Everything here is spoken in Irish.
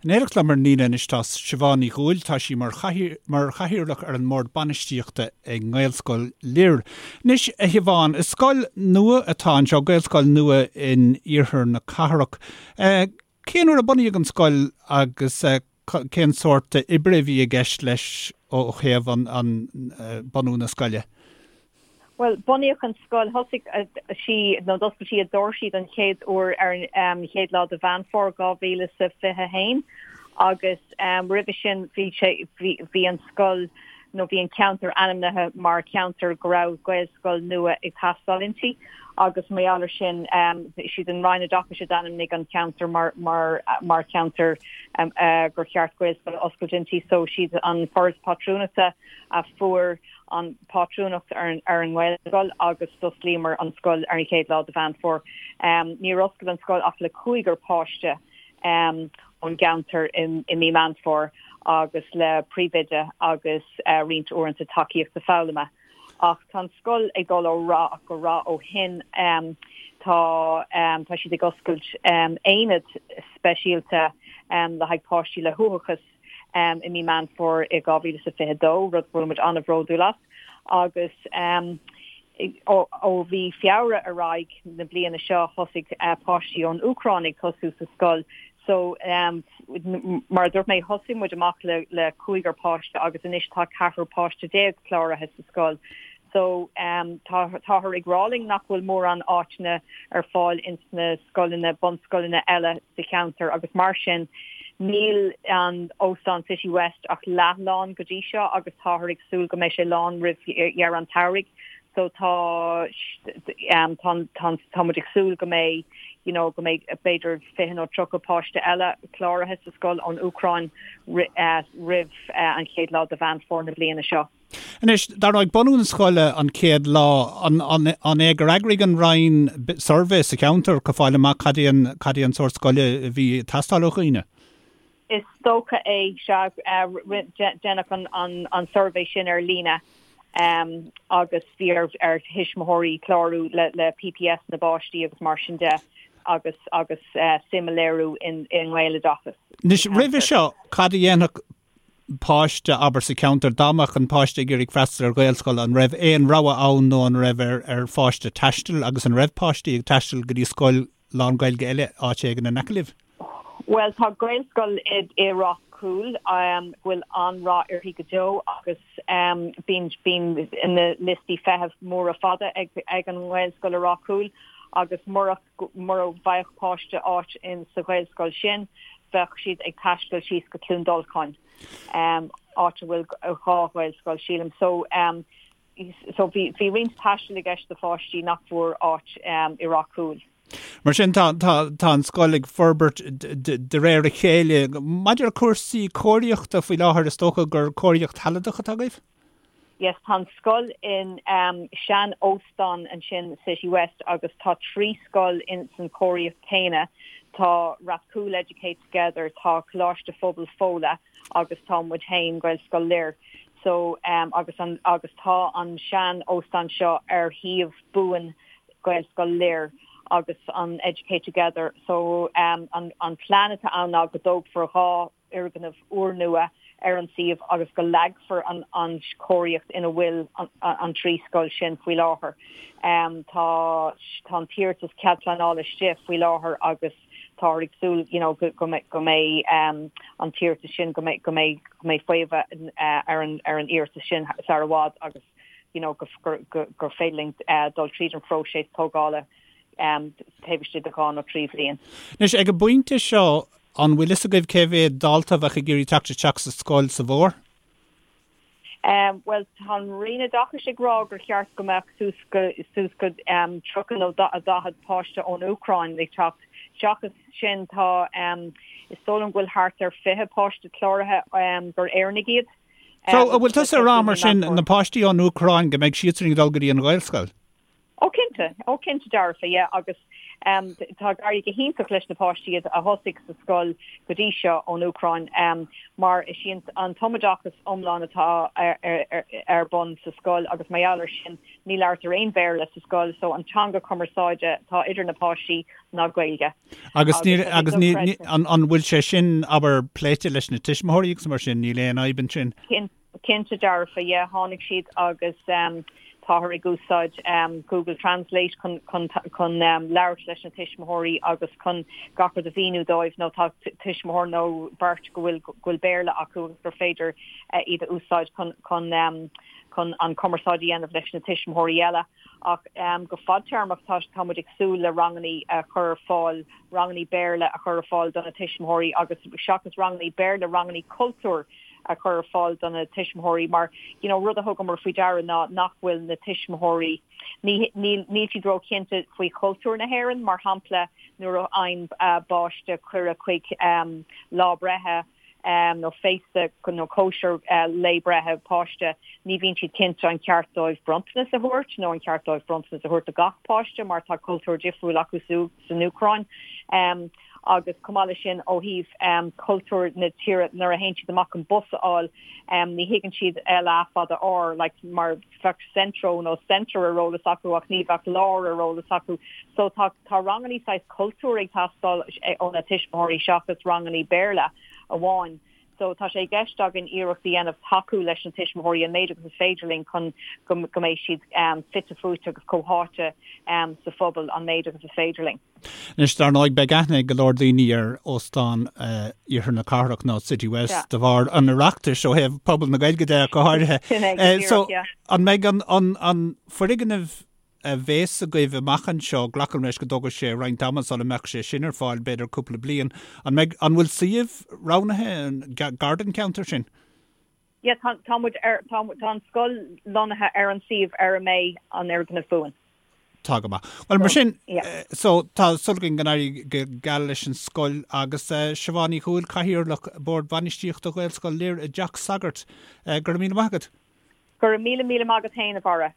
In éineacht liom ar an líne anois tá Siobhán Ní Dhúill, tá sí mar mar chathaoirleach ar an mBord Bainistíochta i nGaelscoil Lir. Anois, a Shiobhán, is scoil nua atá anseo, Gaelscoil nua in iarthar na cathrach. Cén uair a bunaíodh an scoil agus cén sórt oibre a bhí i gceist leis ó thaobh an bunú na scoile? Bhuel, bunaíodh an scoil, thosaigh sí, nó d'oscail sí a doirsí don chéad uair ar an chéad lá de Mheán Fómhair 2021 agus roimhe sin bhí sé, bhí an scoil, nó bhí an ceantar ainmnithe mar cheantar go raibh Gaelscoil nua ag teastáil inti agus mar gheall ar sin, siad an Roinn Oideachais a d'ainmnigh an ceantar mar, mar, mar cheantar gur cheart Gaelscoil a oscailt inti so siad an Foras Pátrúnachta a fuair an pátrúnacht ar an nGaelscoil agus d'osclaíomar an scoil ar an chéad lá de Mheán Fómhair. Níor oscail an scoil ach le cúigear páiste ón gceantar i mí Meán Fómhair agus le príomhoide agus roinnt uaireanta tacaíochta foghlama. Ach tá an scoil ag dul ó rath go rath ó shin. Tá tá siad ag oscailt aonad speisialta le haghaidh páistí le huathachas i mí Meán Fómhair i 2022, rud go bhfuil muid an-bhródúil as, agus ó mhí Feabhra ar aghaidh na bliana seo thosaigh páistí ón Úcráin ag tosú sa scoil. So mar a dúirt mé thosaigh muid amach le le cúigear páiste agus anois tá ceathrar páiste déag cláraithe sa scoil. So tá táthar ag rá linn nach bhfuil mórán áiteanna ar fáil ins na scoileanna, bunscoileanna eile sa cheantar agus mar sin níl an Óstán City West ach leath lán go dtí seo agus táthar ag súil go mbeidh sé lán roimh dheireadh an tsamhraidh. So tá tá tá tá muid ag súil go mbeidh you know go mbeidh b'fhéidir 20 nó 30 páiste eile cláraithe sa scoil ón Úcráin roimh an chéad lá de Mheán Fómhair na bliana seo. Anois, dar ndóigh, bunú na scoile an chéad lá, an é gur eagraigh an Roinn suirbhé sa cheantar chun fáil amach cad é an, cad é an sórt scoile a bhí ag teastáil ó dhaoine? Is dócha é, sea. Deineadh an suirbhé sin ar líne agus bhí ar thuismitheoirí clárú le PPS na bpáistí agus mar sin de agus agus suim a léiriú i nGaeloideachas. Anois, roimhe seo, cad a dhéanfadh páiste, abair, sa cheantar, dá mbeadh an páiste ag iarraidh freastal ar Ghaelscoil, an raibh aon rogha ann nó an raibh ar ar pháiste taisteal agus an raibh páistí ag taisteal go dtí scoil lán-Ghaeilge eile áit éigin in aice libh? Bhuel, tá Gaelscoil i i Ráth Cúil go bhfuil an-rath uirthi go deo agus bíonn bíonn na liostaí feithimh móra fada ag ag an nGaelscoil i Ráth Cúil agus murach Mura bhfaigheadh páiste áit in sa Ghaelscoil sin, bheadh siad ag taisteal síos go Cluain Dolcáin, áit a bhfuil 2 Ghaelscoil, sílim. So, so bhí, bhí roinnt taistil i gceist do pháistí nach bhfuair áit i Ráth Cúil. Mar sin, tá, tá, tá an scoil ag forbairt de réir a chéile. Maidir le cúrsaí cóiríochta faoi láthair, is dócha gur cóiríocht shealadach atá agaibh? Yes, tá an scoil in sean óstán ansin, City West, agus tá 3 scoil in san cóiríocht céanna. Tá Rathcoole Educate Together, tá Coláiste Phobail Fóla agus tá muid féin, Gaelscoil Lir. So, agus an, agus tá an sean óstán seo ar shuíomh buan Gaelscoil Lir agus an Educate Together. So, an, an plean atá ann ná go dtógfar 2 fhoirgneamh úrnua ar an suíomh agus go leagfar an chóiríocht ina bhfuil an 3 scoil sin faoi láthair. Tá tá an t-iarratas cead pleanála istigh faoi láthair agus táthar ag súil you know go go mbeidh an t-iarratas sin go mbeidh go mbeidh go mbeidh faomhadh ar an ar an iarratas sin sar i bhfad agus you know go gur féidir linn dul tríd an phróiseas tógála taobh istigh de dhá nó 3 bhliain. Anois, ag an bpointe seo, an bhfuil fhios agaibh cé mhéad dalta a bheadh ag iarraidh teacht isteach sa scoil sa bhfómhar? Bhuel, tá an Roinn Oideachais ag rá gur cheart go mbeadh suas go suas go 30 nó 40 páiste ón Úcráin ag teacht. Seachas sin, tá, is dóigh liom go bhfuil thart ar 20 páiste cláraithe gur Éireannaigh iad. So, an bhfuil tusa ag rá mar sin, na páistí ón Úcráin, go mbeidh siadsan ag dul go dtí an Ghaelscoil? Ó cinnte, ó cinnte dearfa, yeah, agus Tá ag éirí go hiontach leis na páistí a thosaigh sa scoil go dtí seo ón Úcráin mar is í an tumoideachas iomlán atá ar bun sa scoil agus mar gheall ar sin ní labhartar aon Bhéarla sa scoil so an teanga cumarsáide atá idir na páistí ná Gaeilge. Agus níl agus ní an bhfuil sé sin abair pléite leis na tuismitheoirí agus mar sin níl aon fhadhb ansin? Cinnte dearfa, yeah, tháinig siad agus táthar ag úsáid Google Translate chun chun chun labhairt leis na tuismitheoirí agus chun gach rud a mhíniú dóibh nó tá tuismitheoir nó beirt go bhfuil go bhfuil Béarla acu agus gur féidir iad a úsáid chun chun chun an cumarsáid a dhéanamh leis na tuismitheoirí eile. Ach go fadtéarmach tá tá muid ag súil le rangannaí a chur ar fáil, rangannaí Béarla a chur ar fáil do na tuismitheoirí agus seachas rangannaí Béarla, rangannaí cultúir a chur ar fáil do na tuismitheoirí mar you know rud a thugamar faoi deara ná nach bhfuil na tuismitheoirí ní níl níl siad róchinnte faoi chultúr na hÉireann mar shampla nuair a fhaigheann páiste cuireadh chuig lá breithe nó féasta nó cóisir lae breithe páiste ní bhíonn siad cinnte an ceart dóibh bronntanas a thabhairt nó an ceart dóibh bronntanas a thabhairt do gach páiste mar tá cultúr difriúil acu san Úcráin. Agus chomh maith leis sin, ó thaobh cultúr na tíre, nuair a théann siad amach chun bus a fháil, ní thuigeann siad L A fada R, like, mar bheadh Centro nó Centre ar eolas acu ach ní bheadh lár ar eolas acu. So tá tá rangannaí saghas cultúir ag teastáil ó na tuismitheoirí seachas rangannaí Béarla amháin. So tá sé i gceist againn iarracht a dhéanamh tacú leis na tuismitheoirí an méid agus is féidir linn chun go go mbeidh siad fite fuaite agus comhtháite sa phobal an méid agus is féidir linn. Anois, dar ndóigh, beidh aithne ag go leor daoine ar Óstán Iarthar na Cathrach nó City West de bharr an Oireachtais ó thaobh pobal na Gaeilge de go háirithe. Sin é, go díreach, yeah. An mbeidh an foirgneamh a bhéas agaibh amach anseo, glacaim leis go dtógfaidh sé roinnt ama sula mbeadh sé sin ar fáil, b'fhéidir cúpla bliain, an mbeidh, an bhfuil suíomh roghnaithe gar don cheantar sin? Yeah, tá, tá muid ar, tá, tá an scoil lonnaithe ar an suíomh ar a mbeidh an fhoirgneamh buan. Tá go maith. Bhuel, mar sin, so, tá súil againn go n-éirí go geal leis an scoil agus Siobhán Ní Dhúill, Cathaoirleach Bord Bainistíochta Ghaelscoil Lir i dTeach Sagairt. Go raibh míle maith agat. Go raibh míle míle maith agat féin, a Bharra.